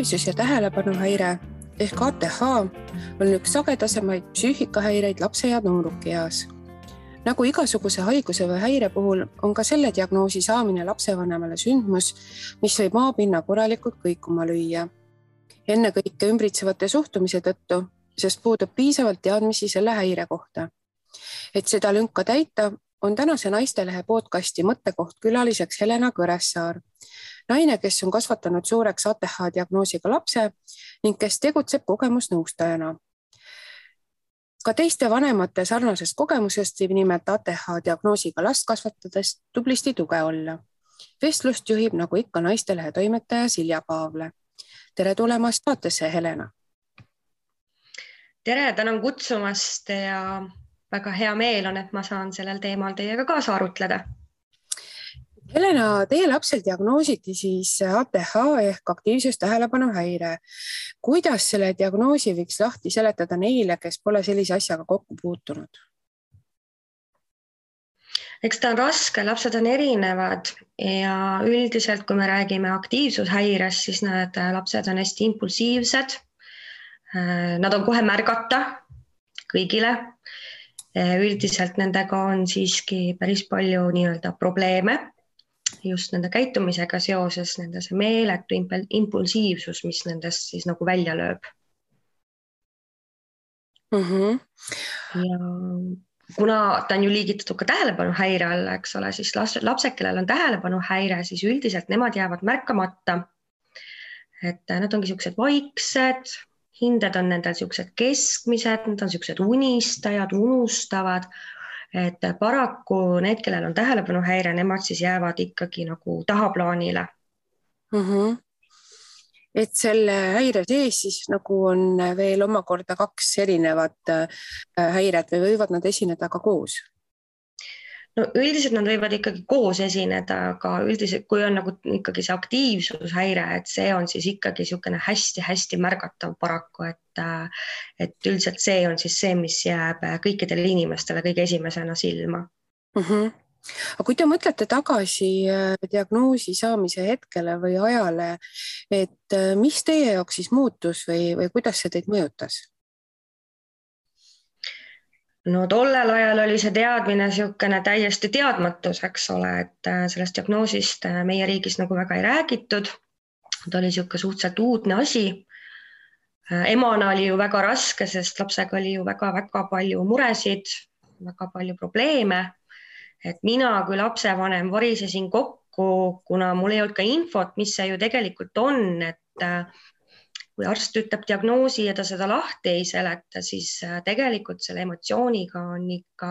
aktiivsus- ja tähelepanuhäire ehk ATH on üks sagedasemaid psüühikahäireid lapse ja noorukieas. Nagu igasuguse haiguse või häire puhul on ka selle diagnoosi saamine lapsevanemale sündmus, mis võib maapinna korralikult kõikuma lüüa. Ennekõike ümbritsevate suhtumise tõttu, sest puudub piisavalt teadmisi selle häire kohta. Et seda lünka täita, on tänase Naistelehe podcasti mõttekoht külaliseks Helena Kõressaar, naine, kes on kasvatanud suureks ATH diagnoosiga lapse ning kes tegutseb kogemusnõustajana. Ka teiste vanemate sarnasest kogemusest võib nimelt ATH diagnoosiga last kasvatades tublisti tuge olla. Vestlust juhib nagu ikka Naistelehe toimetaja Silja Paavle. Tere tulemast saatesse, Helena. Tere, tänan kutsumast ja väga hea meel on, et ma saan sellel teemal teiega kaasa arutleda. Helena, teie lapsel diagnoositi siis ATH ehk aktiivsus-tähelepanuhäire. Kuidas selle diagnoosi võiks lahti seletada neile, kes pole sellise asjaga kokku puutunud? Eks ta on raske, lapsed on erinevad ja üldiselt, kui me räägime aktiivsushäirest, siis need lapsed on hästi impulsiivsed. Nad on kohe märgata kõigile. Üldiselt nendega on siiski päris palju nii-öelda probleeme just nende käitumisega seoses, nende see meeletu impulsiivsus, mis nendest siis nagu välja lööb. Ja kuna ta on ju liigitatud ka tähelepanuhäire alla, eks ole, siis lapsed, kellel on tähelepanuhäire, siis üldiselt nemad jäävad märkamata. Et nad ongi siuksed vaiksed, hinded on nendel siuksed keskmised, nad on siuksed unistajad, unustavad. Et paraku need, kellel on tähelepanuhäire, nemad siis jäävad ikkagi nagu tahaplaanile. Et selle häire sees siis nagu on veel omakorda kaks erinevat häiret või võivad nad esineda ka koos? No üldiselt nad võivad ikkagi koos esineda, aga üldiselt kui on nagu ikkagi see aktiivsushäire, et see on siis ikkagi niisugune hästi-hästi märgatav paraku, et üldiselt see on siis see, mis jääb kõikidele inimestele kõige esimesena silma. Aga kui te mõtlete tagasi diagnoosi saamise hetkele või ajale, et mis teie jaoks siis muutus või kuidas see teid mõjutas? No tollel ajal oli see teadmine niisugune täiesti teadmatus, eks ole, et sellest diagnoosist meie riigis nagu väga ei räägitud. Ta oli niisugune suhteliselt uudne asi. Emana oli ju väga raske, sest lapsega oli ju väga-väga palju muresid, väga palju probleeme. Et mina kui lapsevanem varisesin kokku, kuna mul ei olnud ka infot, mis see ju tegelikult on, et kui arst ütleb diagnoosi ja ta seda lahti ei seleta, siis tegelikult selle emotsiooniga on ikka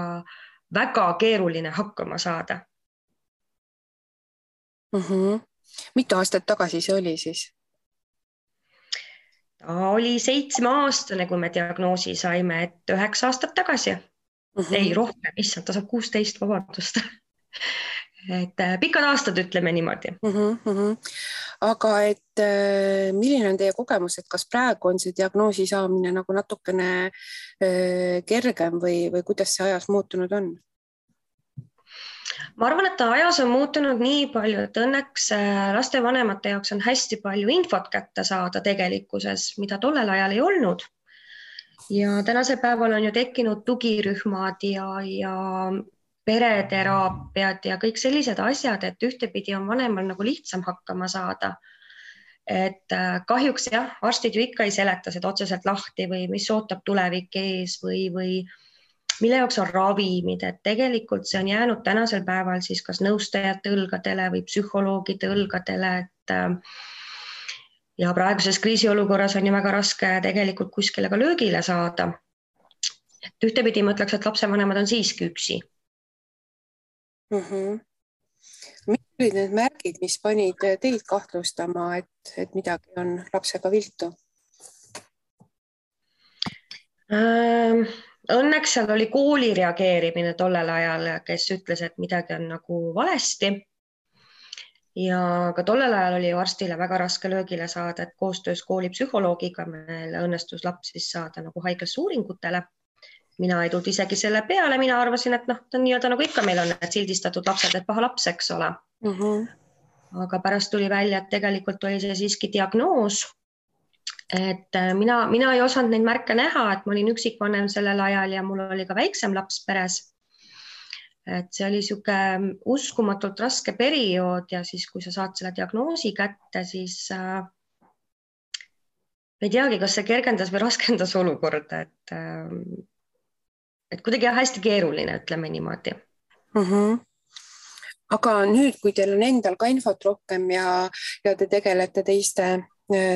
väga keeruline hakkama saada. Mitu aastat tagasi see oli siis? Ta oli 7-aastane, kui me diagnoosi saime, et 9 aastat tagasi. Ei, rohkem, issand, ta saab 16, vabandust. Et pikad aastad, ütleme niimoodi. Aga et milline on teie kogemus, et kas praegu on see diagnoosi saamine nagu natukene kergem või kuidas see ajas muutunud on? Ma arvan, et ta ajas on muutunud nii palju, et õnneks lastevanemate jaoks on hästi palju infot kätte saada tegelikkuses, mida tollel ajal ei olnud. Ja tänasel päeval on ju tekkinud tugirühmad ja pereteraapiad ja kõik sellised asjad, et ühtepidi on vanemal nagu lihtsam hakkama saada. Et kahjuks jah, arstid ju ikka ei seleta seda otseselt lahti või mis ootab tulevik ees või mille jaoks on ravimid, et tegelikult see on jäänud tänasel päeval siis kas nõustajate õlgadele või psühholoogide õlgadele, et ja praeguses kriisiolukorras on ju väga raske tegelikult kuskile ka löögile saada. Et ühtepidi ma ütleks, et lapsevanemad on siiski üksi. Mis olid need märgid, mis panid teid kahtlustama, et midagi on lapsega viltu? Õnneks seal oli kooli reageerimine tollel ajal, kes ütles, et midagi on nagu valesti. Ja ka tollel ajal oli arstile väga raske löögile saada, et koostöös kooli psühholoogiga meil õnnestus laps siis saada nagu haiglasse uuringutele. Mina ei tulnud isegi selle peale, mina arvasin, et ta on nii-öelda nagu ikka meil on need sildistatud lapsed, et paha laps, eks ole. Aga pärast tuli välja, et tegelikult oli see siiski diagnoos et mina ei osanud neid märke näha, et ma olin üksikvanem sellel ajal ja mul oli ka väiksem laps peres. Et see oli niisugune uskumatult raske periood ja siis, kui sa saad selle diagnoosi kätte, siis ei teagi, kas see kergendas või raskendas olukorda, et kuidagi hästi keeruline, ütleme niimoodi. Aga nüüd, kui teil on endal ka infot rohkem ja te tegelete teiste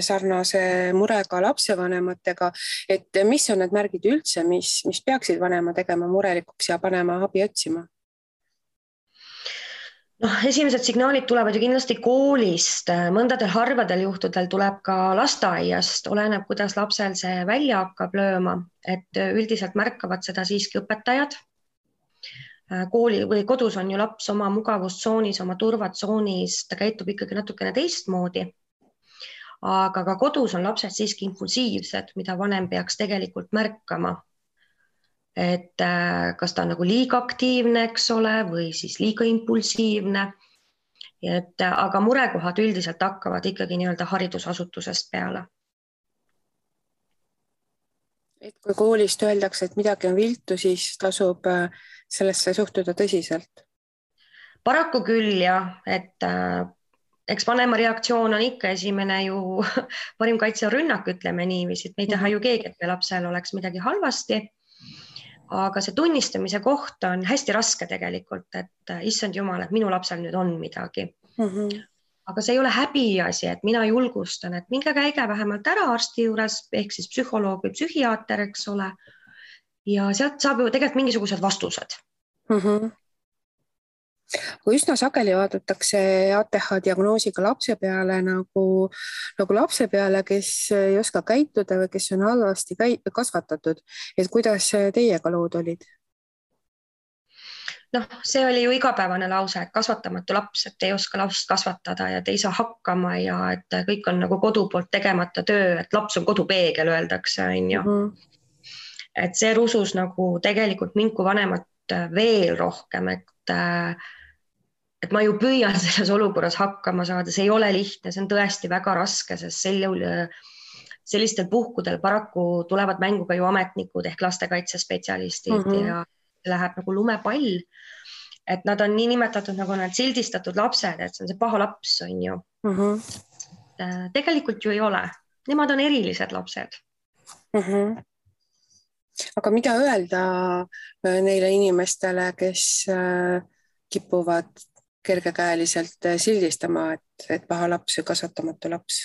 sarnase murega lapsevanematega, et mis on need märgid üldse, mis peaksid vanema tegema murelikuks ja panema abi otsima? Esimesed signaalid tulevad ju kindlasti koolist, mõndadel harvadel juhtudel tuleb ka lasteaiast, oleneb, kuidas lapsel see välja hakkab lööma, et üldiselt märkavad seda siiski õpetajad. Kooli või kodus on ju laps oma mugavustsoonis, oma turvatsoonis, ta käitub ikkagi natukene teistmoodi. Aga ka kodus on lapsed siiski impulsiivsed, mida vanem peaks tegelikult märkama. Et kas ta on nagu liiga aktiivne, eks ole, või siis liiga impulsiivne. Aga murekohad üldiselt hakkavad ikkagi nii-öelda haridusasutusest peale. Et kui koolist öeldakse, et midagi on viltu, siis tasub sellesse suhtuda tõsiselt? Paraku küll jah, et eks vanema reaktsioon on ikka esimene ju parim kaitse on rünnak, ütleme niiviisi, et me ei taha ju keegi, et meie lapsel oleks midagi halvasti. Aga see tunnistamise koht on hästi raske tegelikult, et issand jumal, et minu lapsel nüüd on midagi. Aga see ei ole häbiasi, et mina julgustan, et minge käige vähemalt ära arsti juures, ehk siis psühholoog või psühhiaater, eks ole. Ja sealt saab ju tegelikult mingisugused vastused. Kui üsna sageli vaadatakse ATH diagnoosiga lapse peale nagu lapse peale, kes ei oska käituda või kes on halvasti kasvatatud. Et kuidas teiega lood olid? See oli ju igapäevane lause, et kasvatamatu laps, et ei oska lapst kasvatada ja te ei saa hakkama ja et kõik on nagu kodu poolt tegemata töö, et laps on kodupeegel, öeldakse, on ju. Et see rusus nagu tegelikult mind kui vanemat veel rohkem, et ma ju püüan selles olukorras hakkama saada, see ei ole lihtne, see on tõesti väga raske, sest sellistel puhkudel paraku tulevad mängu ka ju ametnikud ehk lastekaitsespetsialistid ja läheb nagu lumepall, et nad on nii nimetatud nagu need sildistatud lapsed, et see on see paha laps, on ju. Tegelikult ju ei ole, nemad on erilised lapsed. Aga mida öelda neile inimestele, kes kipuvad kergekäeliselt sildistama, et paha laps või kasvatamatu laps?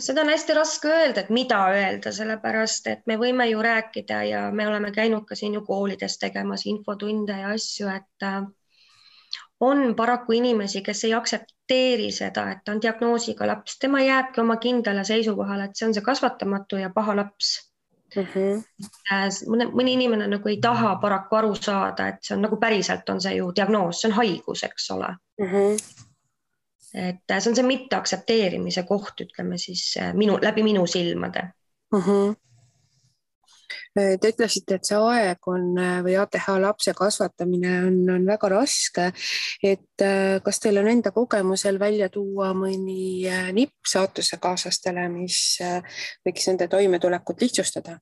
Seda on hästi raske öelda, et mida öelda, sellepärast, et me võime ju rääkida ja me oleme käinud ka siin ju koolides tegemas infotunde ja asju, et on paraku inimesi, kes ei aksepteeri seda, et ta on diagnoosiga laps, tema jääbki oma kindlale seisukohale, et see on see kasvatamatu ja paha laps. Mõni inimene nagu ei taha paraku aru saada, et see on nagu päriselt on see ju diagnoos, see on haigus, eks ole. Et see on see mitte aktsepteerimise koht, ütleme siis läbi minu silmade. Te ütlesite, et see aeg on või ATH lapse kasvatamine on väga raske, et kas teil on enda kogemusel välja tuua mõni nipp saatusekaaslastele, mis võiks nende toimetulekut lihtsustada?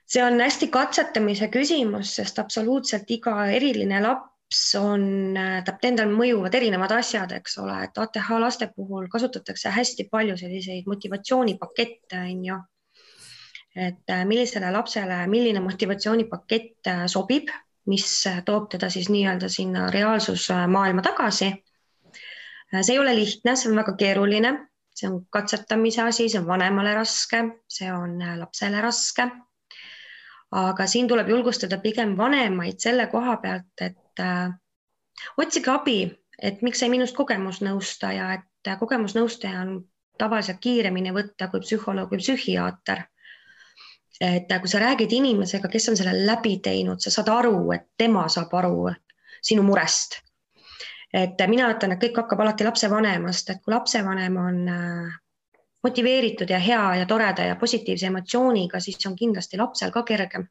See on hästi katsetamise küsimus, sest absoluutselt iga eriline laps tahab endal mõjuvad erinevad asjad, eks ole, et ATH laste puhul kasutatakse hästi palju selliseid motivatsioonipakette, on ju. Et millisele lapsele, milline motivatsioonipakett sobib, mis toob teda siis nii-öelda sinna reaalsusmaailma tagasi. See ei ole lihtne, see on väga keeruline, see on katsetamise asi, see on vanemale raske, see on lapsele raske. Aga siin tuleb julgustada pigem vanemaid selle koha pealt, et otsige abi, et miks ei minust kogemusnõustaja, et kogemusnõustaja on tavaliselt kiiremini võtta kui psühholoog või psühhiaater. Et kui sa räägid inimesega, kes on selle läbi teinud, sa saad aru, et tema saab aru sinu murest. Et mina ütlen, et kõik hakkab alati lapsevanemast, et kui lapsevanem on motiveeritud ja hea ja toreda ja positiivse emotsiooniga, siis on kindlasti lapsel ka kergem.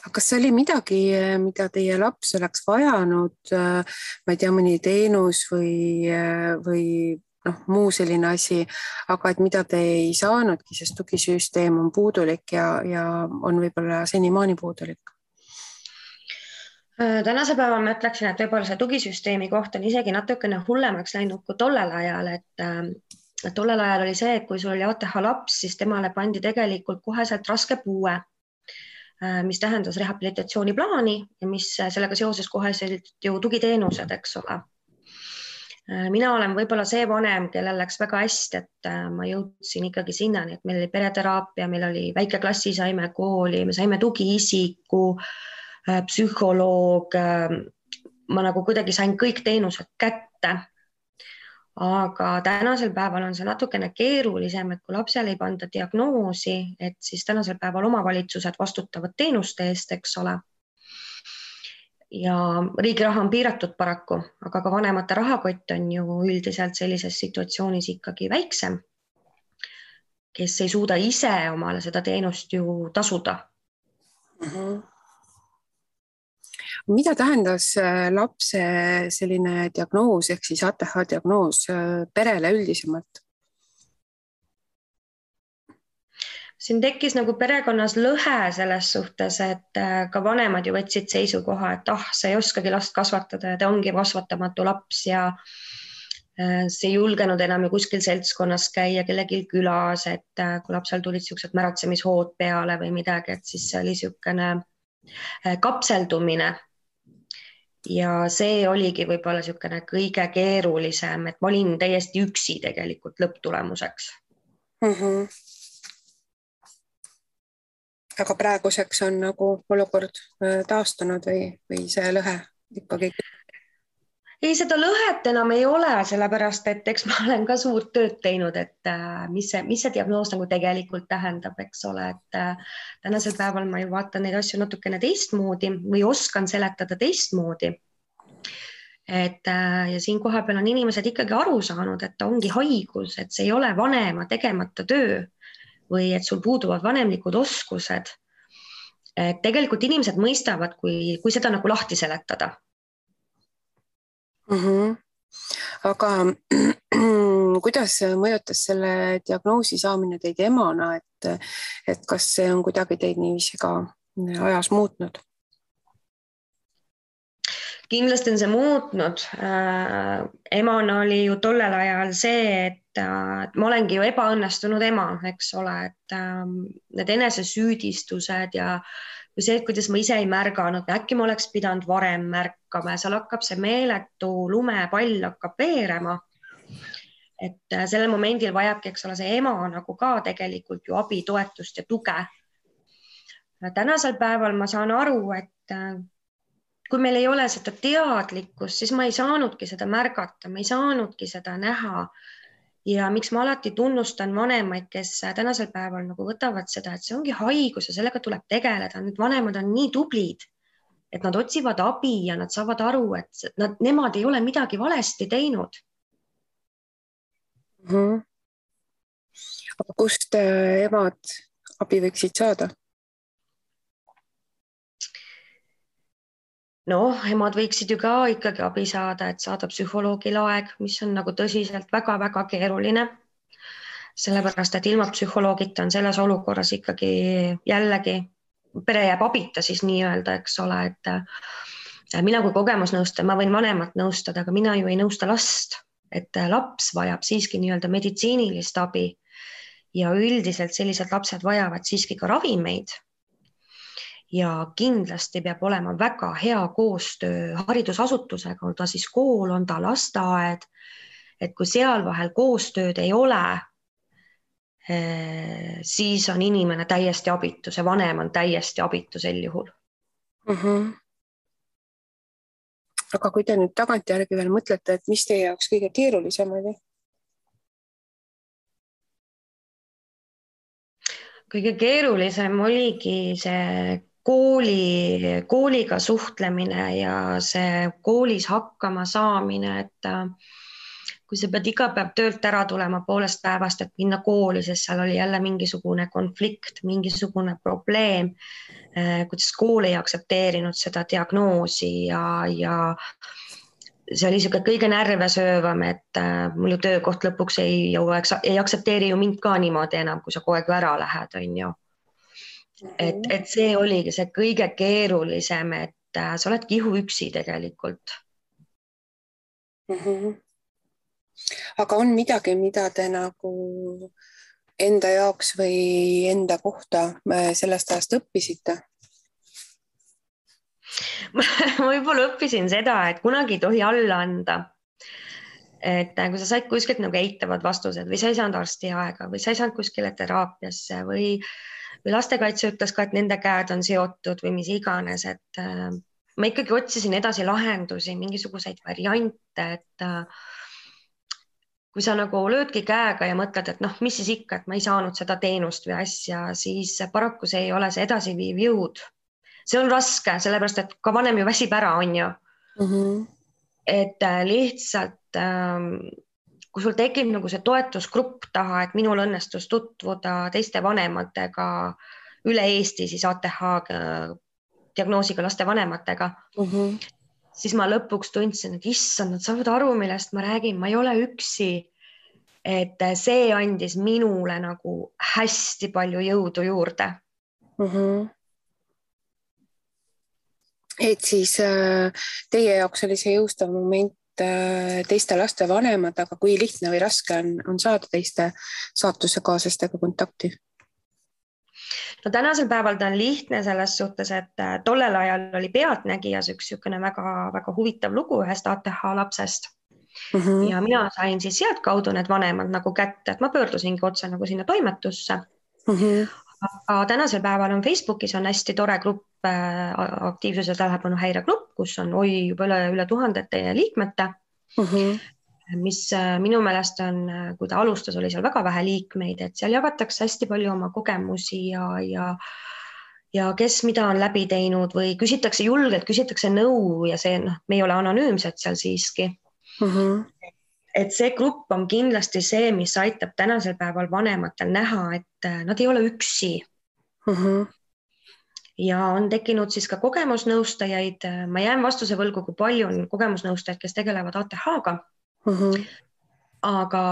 aga kas oli midagi, mida teie laps oleks vajanud, ma ei tea, mõni teenus või muu selline asi, aga et mida te ei saanudki, sest tugisüsteem on puudulik ja on võib-olla senimaani puudulik? Tänasel päeval ma ütleksin, et võib-olla see tugisüsteemi koht on isegi natukene hullemaks läinud kui tollel ajal, et tollel ajal oli see, et kui sul oli ATH laps, siis temale pandi tegelikult koheselt raske puue, mis tähendas rehabilitatsiooniplaani ja mis sellega seoses koheselt ju tugiteenused, eks ole. Mina olen võib-olla see vanem, kellel läks väga hästi, et ma jõudsin ikkagi sinnani, et meil oli pereteraapia, meil oli väike klassi, saime kooli, me saime tugiisiku, psühholoog, ma nagu kuidagi sain kõik teenused kätte. Aga tänasel päeval on see natukene keerulisem, et kui lapsele ei panda diagnoosi, et siis tänasel päeval omavalitsused vastutavad teenuste eest, eks ole. Ja riigi raha on piiratud paraku, aga ka vanemate rahakott on ju üldiselt sellises situatsioonis ikkagi väiksem, kes ei suuda ise omale seda teenust ju tasuda. Mida tähendas lapse selline diagnoos ehk siis ATH diagnoos perele üldisemalt? Siin tekkis nagu perekonnas lõhe selles suhtes, et ka vanemad ju võtsid seisukoha, et sa ei oskagi last kasvatada ja ta ongi kasvatamatu laps ja see ei julgenud enam ju kuskil seltskonnas käia kellelgi külas, et kui lapsel tulid niisugused märatsemishood peale või midagi, et siis see oli niisugune kapseldumine. Ja see oligi võib-olla niisugune kõige keerulisem, et ma olin täiesti üksi tegelikult lõpptulemuseks. Aga praeguseks on nagu olukord taastunud või see lõhe ikkagi? Ei, seda lõhet enam ei ole, sellepärast et eks ma olen ka suurt tööd teinud, et mis see diagnoos nagu tegelikult tähendab, eks ole, et tänasel päeval ma ju vaatan neid asju natukene teistmoodi või oskan seletada teistmoodi. Ja siin koha peal on inimesed ikkagi aru saanud, et ta ongi haigus, et see ei ole vanema tegemata töö või et sul puuduvad vanemlikud oskused. Et tegelikult inimesed mõistavad, kui seda nagu lahti seletada. Aga kuidas mõjutas selle diagnoosi saamine teid emana, et kas see on kuidagi teid niiviisi ka ajas muutnud? Kindlasti on see muutnud. Emana oli ju tollel ajal see, et ma olengi ju ebaõnnestunud ema, eks ole, et need enesesüüdistused ja see, kuidas ma ise ei märganud, äkki ma oleks pidanud varem märkama ja seal hakkab see meeletu lumepall hakkab veerema. Et sellel momendil vajabki, eks ole, see ema nagu ka tegelikult ju abi, toetust ja tuge. Tänasel päeval ma saan aru, et kui meil ei ole seda teadlikkust, siis ma ei saanudki seda märgata, ma ei saanudki seda näha. Ja miks ma alati tunnustan vanemaid, kes tänasel päeval nagu võtavad seda, et see ongi haigus ja sellega tuleb tegeleda. Need vanemad on nii tublid, et nad otsivad abi ja nad saavad aru, et nemad ei ole midagi valesti teinud. Aga kust emad abi võiksid saada? Emad võiksid ju ka ikkagi abi saada, et saada psühholoogil aeg, mis on nagu tõsiselt väga-väga keeruline. Sellepärast, et ilma psühholoogita on selles olukorras ikkagi jällegi, pere jääb abita siis nii-öelda, eks ole, et mina kui kogemusnõustaja, ma võin vanemat nõustada, aga mina ju ei nõusta last, et laps vajab siiski nii-öelda meditsiinilist abi ja üldiselt sellised lapsed vajavad siiski ka ravimeid. Ja kindlasti peab olema väga hea koostöö haridusasutusega, on ta siis kool, on ta lasteaed, et kui seal vahel koostööd ei ole, siis on inimene täiesti abitu, see vanem on täiesti abitu sel juhul. Aga kui te nüüd tagantjärgi veel mõtlete, et mis teie jaoks kõige keerulisem oli? Kõige keerulisem oligi see kooliga suhtlemine ja see koolis hakkama saamine, et kui sa pead iga päev töölt ära tulema poolest päevast, et minna kooli, sest seal oli jälle mingisugune konflikt, mingisugune probleem, kuidas kool ei aktsepteerinud seda diagnoosi ja see oli niisugune kõige närve söövam, et mul ju töökoht lõpuks ei aktsepteeri ju mind ka niimoodi enam, kui sa kogu aeg ära lähed, on ju. Et see oligi see kõige keerulisem, et sa oled kihuüksi tegelikult. Aga on midagi, mida te nagu enda jaoks või enda kohta sellest ajast õppisite? Ma võib-olla õppisin seda, et kunagi ei tohi alla anda. Et kui sa said kuskilt nagu eitavad vastused või sa ei saanud arstiaega või sa ei saanud kuskile teraapiasse või lastekaitse ütles ka, et nende käed on seotud või mis iganes, et ma ikkagi otsisin edasi lahendusi, mingisuguseid variante, et kui sa nagu löödki käega ja mõtled, et noh, mis siis ikka, et ma ei saanud seda teenust või asja, siis paraku see ei ole see edasiviiv jõud. See on raske, sellepärast et ka vanem ju väsib ära, on ju. Et lihtsalt, kui sul tekib nagu see toetusgrupp taha, et minul õnnestus tutvuda teiste vanematega üle Eesti, siis ATH diagnoosiga laste vanematega, siis ma lõpuks tundsin, et issand, nad saavad aru, millest ma räägin, ma ei ole üksi. Et see andis minule nagu hästi palju jõudu juurde. Et siis teie jaoks oli see jõustav moment teiste laste vanemad, aga kui lihtne või raske on saada teiste saatusekaaslastega kontakti? No tänasel päeval ta on lihtne selles suhtes, et tollel ajal oli Pealtnägijas üks väga huvitav lugu ühest ATH lapsest. Ja mina sain siis sealt kaudu need vanemad nagu kätte, et ma pöördusingi otse nagu sinna toimetusse. Aga tänasel päeval on Facebookis on hästi tore grupp, aktiivsuse tähelepanu häiregrupp, kus on juba üle 1000 liikmete, mis minu meelest on, kui ta alustas, oli seal väga vähe liikmeid, et seal jagatakse hästi palju oma kogemusi ja kes mida on läbi teinud või julgelt küsitakse nõu ja see, me ei ole anonüümsed seal siiski. Et see grupp on kindlasti see, mis aitab tänasel päeval vanematel näha, et nad ei ole üksi. Ja on tekkinud siis ka kogemusnõustajaid. Ma jään vastuse võlgu, kui palju on kogemusnõustajaid, kes tegelevad ATH-ga. Aga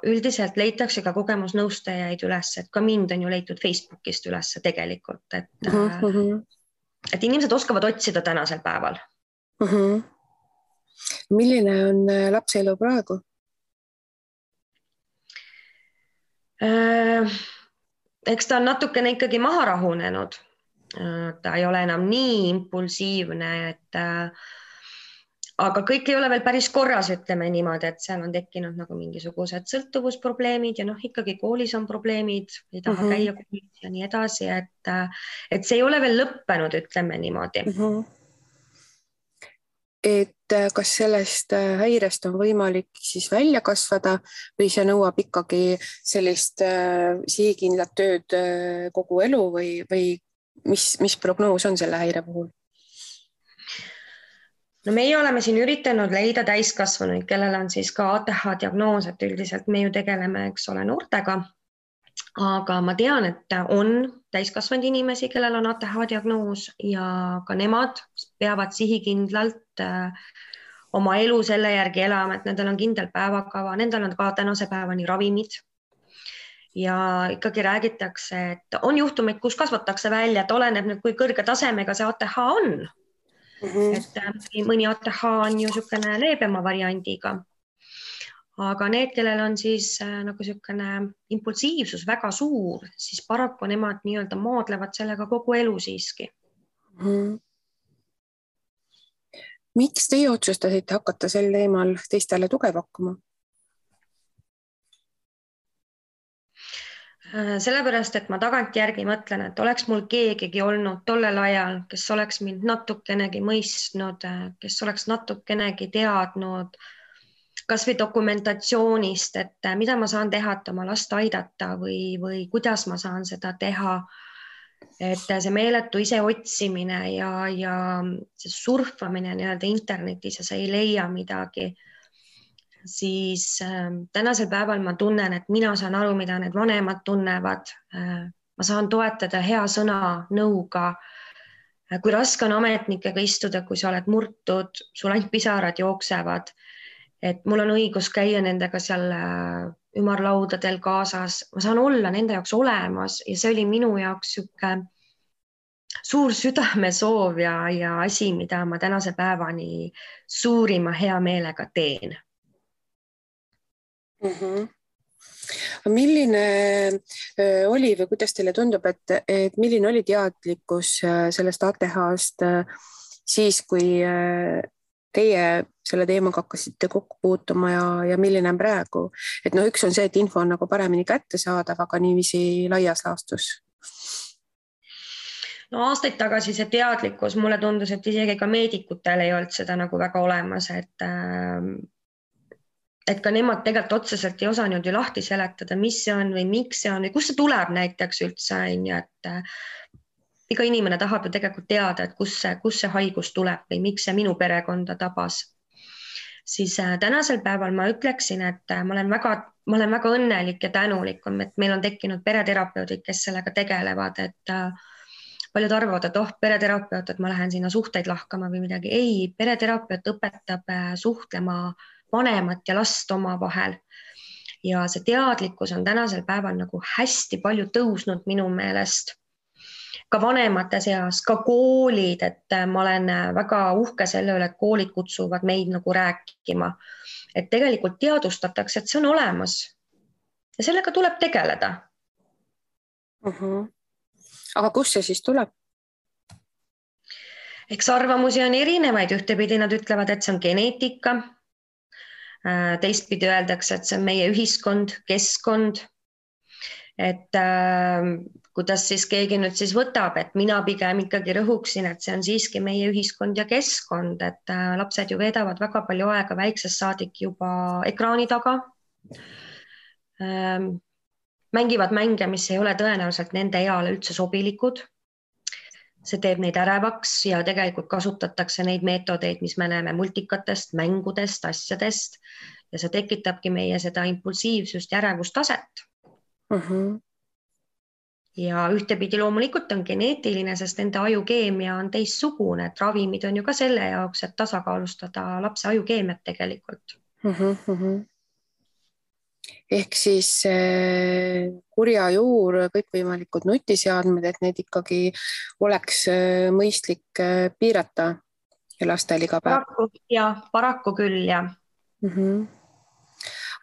üldiselt leitakse ka kogemusnõustajaid üles, et ka mind on ju leitud Facebookist üles tegelikult, et inimesed oskavad otsida tänasel päeval. Milline on lapse elu praegu? Eks ta on natukene ikkagi maha rahunenud. Ta ei ole enam nii impulsiivne, aga kõik ei ole veel päris korras, ütleme niimoodi, et seal on tekkinud nagu mingisugused sõltuvusprobleemid ja ikkagi koolis on probleemid, ei taha käia koolis ja nii edasi, et see ei ole veel lõppenud, ütleme niimoodi. Et kas sellest häirest on võimalik siis välja kasvada või see nõuab ikkagi sellist sihikindlat tööd kogu elu või mis prognoos on selle häire puhul? No meie oleme siin üritanud leida täiskasvanuid, kellel on siis ka ATH diagnoos, et üldiselt me ju tegeleme, eks ole, noortega. Aga ma tean, et on täiskasvanud inimesi, kellel on ATH diagnoos ja ka nemad peavad sihikindlalt oma elu selle järgi elama, et nendel on kindel päevakava, nendel on ka tänase päevani ravimid. Ja ikkagi räägitakse, et on juhtumeid, kus kasvatakse välja, et oleneb nüüd, kui kõrge tasemega see ATH on. Et mõni ATH on ju niisugune leebema variandiga. Aga need, kellel on siis nagu niisugune impulsiivsus väga suur, siis paraku nemad nii-öelda maadlevad sellega kogu elu siiski. Miks teie otsustasite hakata sel teemal teistele tuge pakkuma? Sellepärast, et ma tagantjärgi mõtlen, et oleks mul keegigi olnud tollel ajal, kes oleks mind natukenegi mõistnud, kes oleks natukenegi teadnud, kas või dokumentatsioonist, et mida ma saan teha, et oma last aidata või kuidas ma saan seda teha. Et see meeletu ise otsimine ja see surfamine nii-öelda internetis ja sa ei leia midagi. siis tänasel päeval ma tunnen, et mina saan aru, mida need vanemad tunnevad. Ma saan toetada hea sõna, nõuga. Kui raske on ametnikega istuda, kui sa oled murtud, sul ainult pisarad jooksevad, et mul on õigus käia nendega seal ümarlaudadel kaasas. Ma saan olla nende jaoks olemas ja see oli minu jaoks siuke suur südamesoov ja asi, mida ma tänase päevani suurima hea meelega teen. Milline oli või kuidas teile tundub, et milline oli teadlikkus sellest ATH-st siis, kui teie selle teemaga hakkasite kokku puutuma ja milline on praegu? Et üks on see, et info on nagu paremini kättesaadav, aga niiviisi laias laastus. Aastaid tagasi see teadlikkus, mulle tundus, et isegi ka meedikutel ei olnud seda nagu väga olemas, et ka nemad tegelikult otseselt ei osanud ju lahti seletada, mis see on või miks see on või kust see tuleb näiteks üldse, et iga inimene tahab ju tegelikult teada, et kus see haigus tuleb või miks see minu perekonda tabas. Siis tänasel päeval ma ütleksin, et ma olen väga õnnelik ja tänulik, et meil on tekkinud pereterapeudid, kes sellega tegelevad, et paljud arvavad, et pereterapeut, et ma lähen sinna suhteid lahkama või midagi. Ei, pereterapeut õpetab suhtlema vanemat ja last omavahel. Ja see teadlikkus on tänasel päeval nagu hästi palju tõusnud minu meelest. Ka vanemate seas, ka koolid, et ma olen väga uhke selle üle, et koolid kutsuvad meid nagu rääkima. Et tegelikult teadustatakse, et see on olemas. Ja sellega tuleb tegeleda. Aga kus see siis tuleb? Eks arvamusi on erinevaid. Ühtepidi nad ütlevad, et see on geneetika. Teistpidi öeldakse, et see on meie ühiskond, keskkond. Et kuidas siis keegi nüüd siis võtab, et mina pigem ikkagi rõhuksin, et see on siiski meie ühiskond ja keskkond, et lapsed ju veedavad väga palju aega väiksest saadik juba ekraani taga. Mängivad mänge, mis ei ole tõenäoliselt nende eale üldse sobilikud. See teeb neid ärevaks ja tegelikult kasutatakse neid meetodeid, mis me näeme multikatest, mängudest, asjadest ja see tekitabki meie seda impulsiivsust ja ärevustaset. Ja ühtepidi loomulikult on geneetiline, sest nende ajukeemia on teistsugune, et ravimid on ju ka selle jaoks, et tasakaalustada lapse ajukeemiat tegelikult. Ehk siis kurja juur, kõikvõimalikud nutiseadmed, et need ikkagi oleks mõistlik piirata ja lastel iga päev. Paraku küll, jah.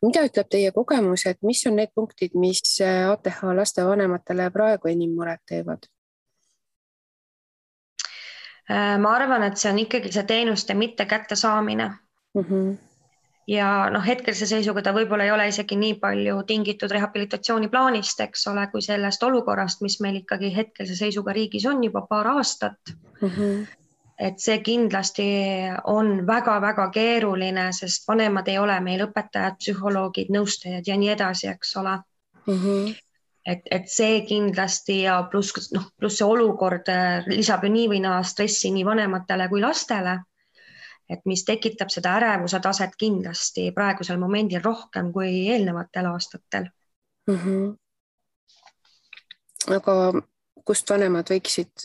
Mida ütleb teie kogemus, et mis on need punktid, mis ATH lastevanematele praegu enim muret teevad? Ma arvan, et see on ikkagi see teenuste mitte kättesaamine. Ja hetkelse seisuga ta võib-olla ei ole isegi nii palju tingitud rehabilitatsiooniplaanist, eks ole, kui sellest olukorrast, mis meil ikkagi hetkelse seisuga riigis on juba paar aastat. Et see kindlasti on väga-väga keeruline, sest vanemad ei ole meil õpetajad, psühholoogid, nõustajad ja nii edasi, eks ole. Et see kindlasti ja pluss see olukord lisab ju nii või naa stressi nii vanematele kui lastele. Et mis tekitab seda ärevuse taset kindlasti praegusel momendil rohkem kui eelnevatel aastatel. Aga kust vanemad võiksid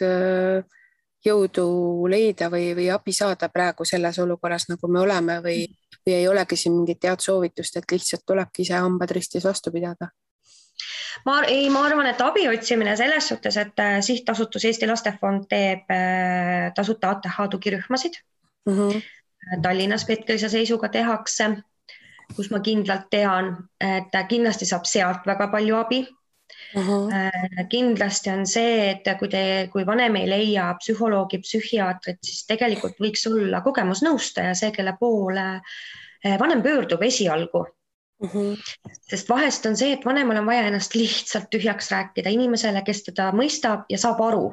jõudu leida või abi saada praegu selles olukorras, nagu me oleme või ei olegi siin mingit head soovitust, et lihtsalt tulebki ise hambad ristis vastu pidada? Ma arvan, et abi otsimine selles suhtes, et sihtasutus Eesti Lastefond teeb tasuta ATH tugirühmasid. Tallinnas hetkelse seisuga tehakse, kus ma kindlalt tean, et kindlasti saab sealt väga palju abi. Kindlasti on see, et kui vanem ei leia psühholoogi, psühhiaatrit, siis tegelikult võiks olla kogemusnõustaja, see, kelle poole vanem pöördub esialgu. Sest vahest on see, et vanemal on vaja ennast lihtsalt tühjaks rääkida inimesele, kes teda mõistab ja saab aru.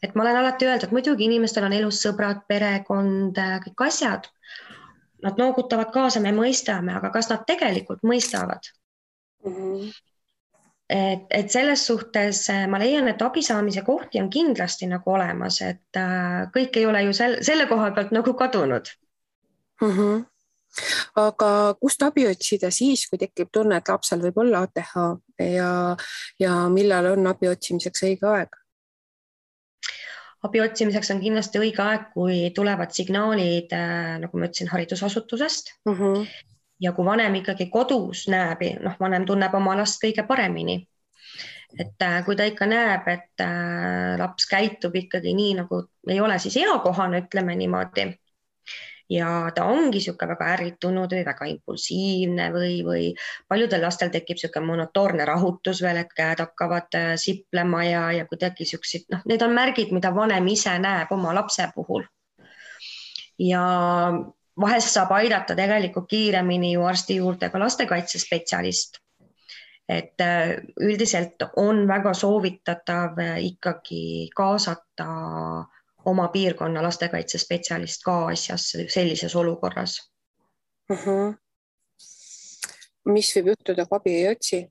Et ma olen alati öeldud, et muidugi inimestel on elus sõbrad, perekond, kõik asjad. Nad noogutavad kaasa, me mõistame, aga kas nad tegelikult mõistavad? Et selles suhtes ma leian, et abi saamise kohti on kindlasti nagu olemas, et kõik ei ole ju selle koha pealt nagu kadunud. Aga kust abi otsida siis, kui tekib tunne, et lapsel võib olla ATH ja millal on abi otsimiseks õige aeg? Abi otsimiseks on kindlasti õige aeg, kui tulevad signaalid, nagu ma ütlesin, haridusasutusest. Ja kui vanem ikkagi kodus näeb, vanem tunneb oma last kõige paremini. Et kui ta ikka näeb, et laps käitub ikkagi nii, nagu ei ole siis eakohane, ütleme niimoodi, ja ta ongi siuke väga ärritunud või väga impulsiivne või paljudel lastel tekib siuke monotoorne rahutus veel, et käed hakkavad siplema ja kuidagi siuksid, need on märgid, mida vanem ise näeb oma lapse puhul. Ja vahest saab aidata tegelikult kiiremini ju arsti juurde ka lastekaitsespetsialist. Et üldiselt on väga soovitatav ikkagi kaasata oma piirkonna lastekaitsespetsialist ka asjasse sellises olukorras. Mis võib juhtuda, kui abi ei otsi?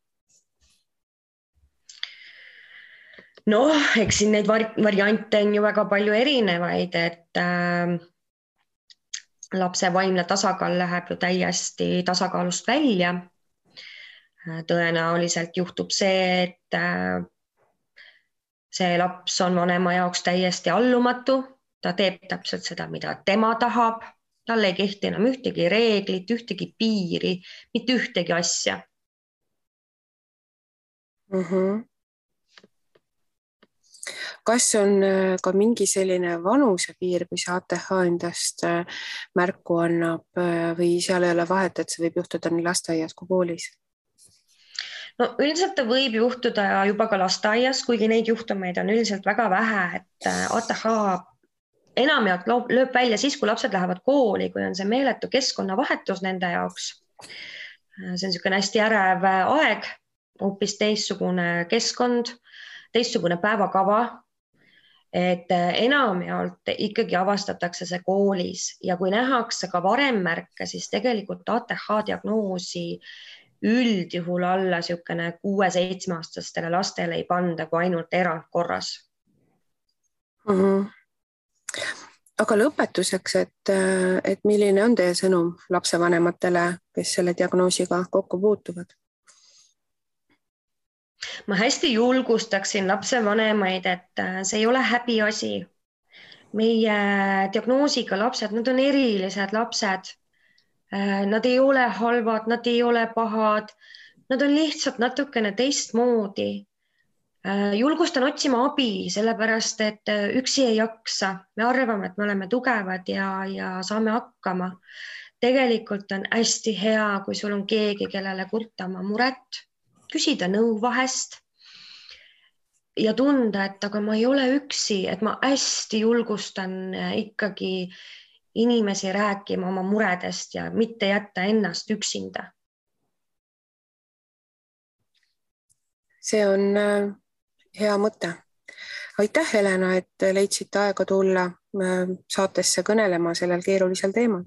Eks siin neid variante on ju väga palju erinevaid, et lapse vaimne tasakaal läheb ju täiesti tasakaalust välja. Tõenäoliselt juhtub see, et see laps on vanema jaoks täiesti allumatu, ta teeb täpselt seda, mida tema tahab, tal ei kehti enam ühtegi reeglit, ühtegi piiri, mitte ühtegi asja. Kas on ka mingi selline vanusepiir, kui see ATH endast märku annab või seal ei ole vahet, et see võib juhtuda nii lasteaias kui koolis? Üldiselt ta võib juhtuda juba ka lasteaias, kuigi neid juhtumeid on üldiselt väga vähe, et ATH enamjaolt lööb välja siis, kui lapsed lähevad kooli, kui on see meeletu keskkonnavahetus nende jaoks. See on niisugune hästi ärev aeg, hoopis teistsugune keskkond, teistsugune päevakava, et enamjaolt ikkagi avastatakse see koolis ja kui nähakse ka varem märke, siis tegelikult ATH diagnoosi üldjuhul alla siukene 6-7-aastastele lastele ei panda kui ainult erandkorras. Aga lõpetuseks, et milline on teie sõnum lapsevanematele, kes selle diagnoosiga kokku puutuvad? Ma hästi julgustaksin lapsevanemaid, et see ei ole häbiasi. Meie diagnoosiga lapsed, nad on erilised lapsed. Nad ei ole halvad, nad ei ole pahad, nad on lihtsalt natukene teistmoodi. Julgustan otsima abi, sellepärast, et üksi ei jaksa. Me arvame, et me oleme tugevad ja saame hakkama. Tegelikult on hästi hea, kui sul on keegi, kellele kurta oma muret, küsida nõu vahest ja tunda, et aga ma ei ole üksi, et ma hästi julgustan ikkagi inimesi rääkima oma muredest ja mitte jätta ennast üksinda. See on hea mõte. Aitäh, Helena, et leidsite aega tulla saatesse kõnelema sellel keerulisel teemal.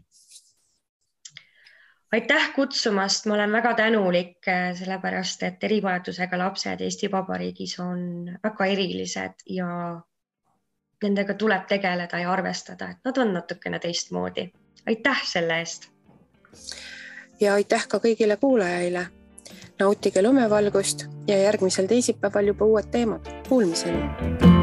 Aitäh kutsumast, ma olen väga tänulik, sellepärast, et erivajadusega lapsed Eesti Vabariigis on väga erilised ja nendega tuleb tegeleda ja arvestada, et nad on natukene teistmoodi. Aitäh selle eest! Ja aitäh ka kõigile kuulajaile. Nautige lumevalgust ja järgmisel teisipäeval juba uued teemad. Kuulmiseni!